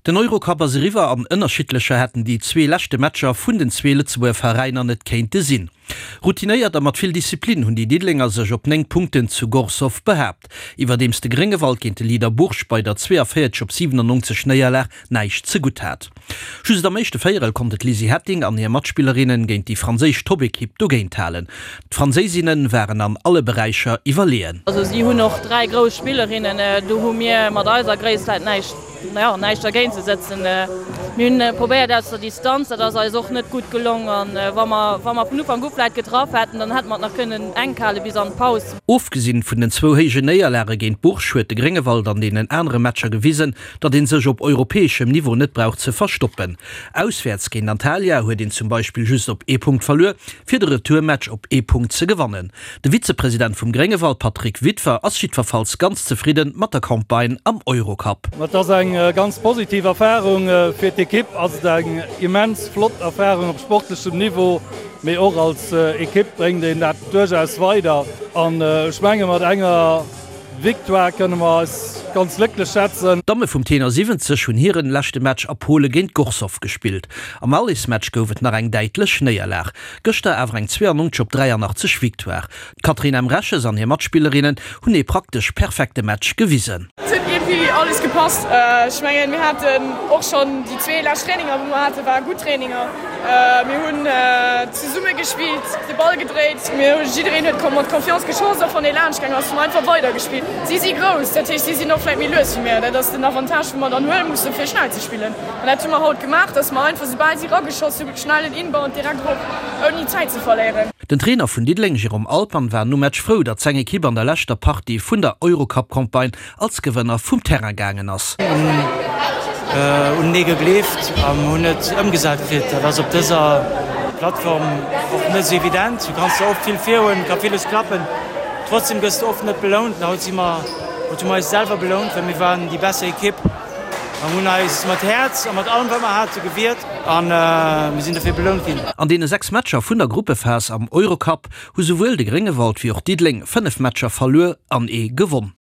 Den Eurocup ass eriwwer an ënnerschiddlecher hätten déi zwee leschte Matcher vun den zwee Lëtzebuerger Veräiner net kéinte sinn. Routinéiert a mat vill Disziplin hunn déi Diddelenger sech op 9 Punkten zu Gorzów behaapt, iwwerdeems de Gréngewald géint de Leader Bourges bei der 42 op 97 Néierlag näischt zegutt hat. Just am éischte Véierel konnte d'Lizzy Hetting an hir Matspillerinnen géint déi franséisch Topekipp dogéint halen. D'Franséisinne waren an alle Beräicher iwwerleeën. Also si hunn och 3 grouss Spillerinnen, do hu mir mat eiser Gréisst vläit näischt, jo, näischt dergéint ze sëtzen. Mir hunn probéiert aus der Distanz, dat ass eis och net gutt gelong. An wa mer, wa mer vun Ufank u vläit getraff hätten, dann hätte mer et nach kënnen enk hale bis an d'Paus. Ofgesinn vun den zwou héijen Néierlage géint Bourges huet de Gréngewald an deenen anere Matcher gewisen, datt een sech op europäeschem Niveau net brauch ze verstoppen. Auswäerts géint Antalya huet een zum Beispill just op ee Punkt verluer, fir de Retourmatch op ee Punkt ze gewannen. De Vizepresident vum Gréngewald Patrick Witwer ass jiddwerfalls ganz zefridde mat der Campagne am Eurocup. Et ass eng ganz positiv Erfarung. Fir d'Ekipp ass et eng immens flott Erfarung op sportlechem Niveau, mee och als Ekipp bréngt een dat duerchaus weider. An ech menge mat enger Victoire kënne mer eis ganz glécklech schätzen. D'Damme vum Tenor 70 hunn hiren leschte Match a Pole géint Gorzów gespillt. Am Allesmatch gouf et nach eng däitlech Néierlag. Gëschter awer eng 92 op 83 Victoire. D'Catherine Emreches an hir Matspillerinnen hunn ee praktesch perfekte Match gewisen. Et huet iergendwéi alles gepasst. Ech mengen, mir haten och schonn déi zwee lescht Traininger, wou mer haten, ware gutt Traininger. Mir hunn zesumme gespillt, de Ball gedréit, mir hu jiddereen huet mat Confiance geschoss, och wann ee laanscht gaang ass, hu mer einfach weider gespillt. Si si grouss, dat heescht si sinn och vläit méi lues wéi mir. Dat ass den Avantage wou mer dann huele musse fir schnell ze spillen. An dat hu mer haut gemaach, datt mer einfach soubal si rageschoss hu schnell en Inbound direkt erop, ouni Zäit ze verléieren. Den Trainer vun Diddeleng Jérôme Altmann war nom Match frou, datt seng Ekipp an der leschter Partie vun der Eurocup-Campagne als Gewënner vum Terrain gaangen ass. Hunn unenee gegleeft an hunn et ëmgesat kritt. Dat ass op dëser Plattform och net esou evident. Du kanns der oft vill virhuelen, et ka villes klappen, trotzdem gëss de oft net belount. An haut si mer, haut hu mer eis selwer belount, well mir waren déi besser Ekipp an hunn eis mat Häerz a mat allem wat mer hate gewiert an mir sinn dofir belount ginn. An deene 6 Matcher vun der Gruppephas am Eurocup hu souwuel de Gréngewald wéi och Diddeleng 5 Matcher verluer an ee gewonn.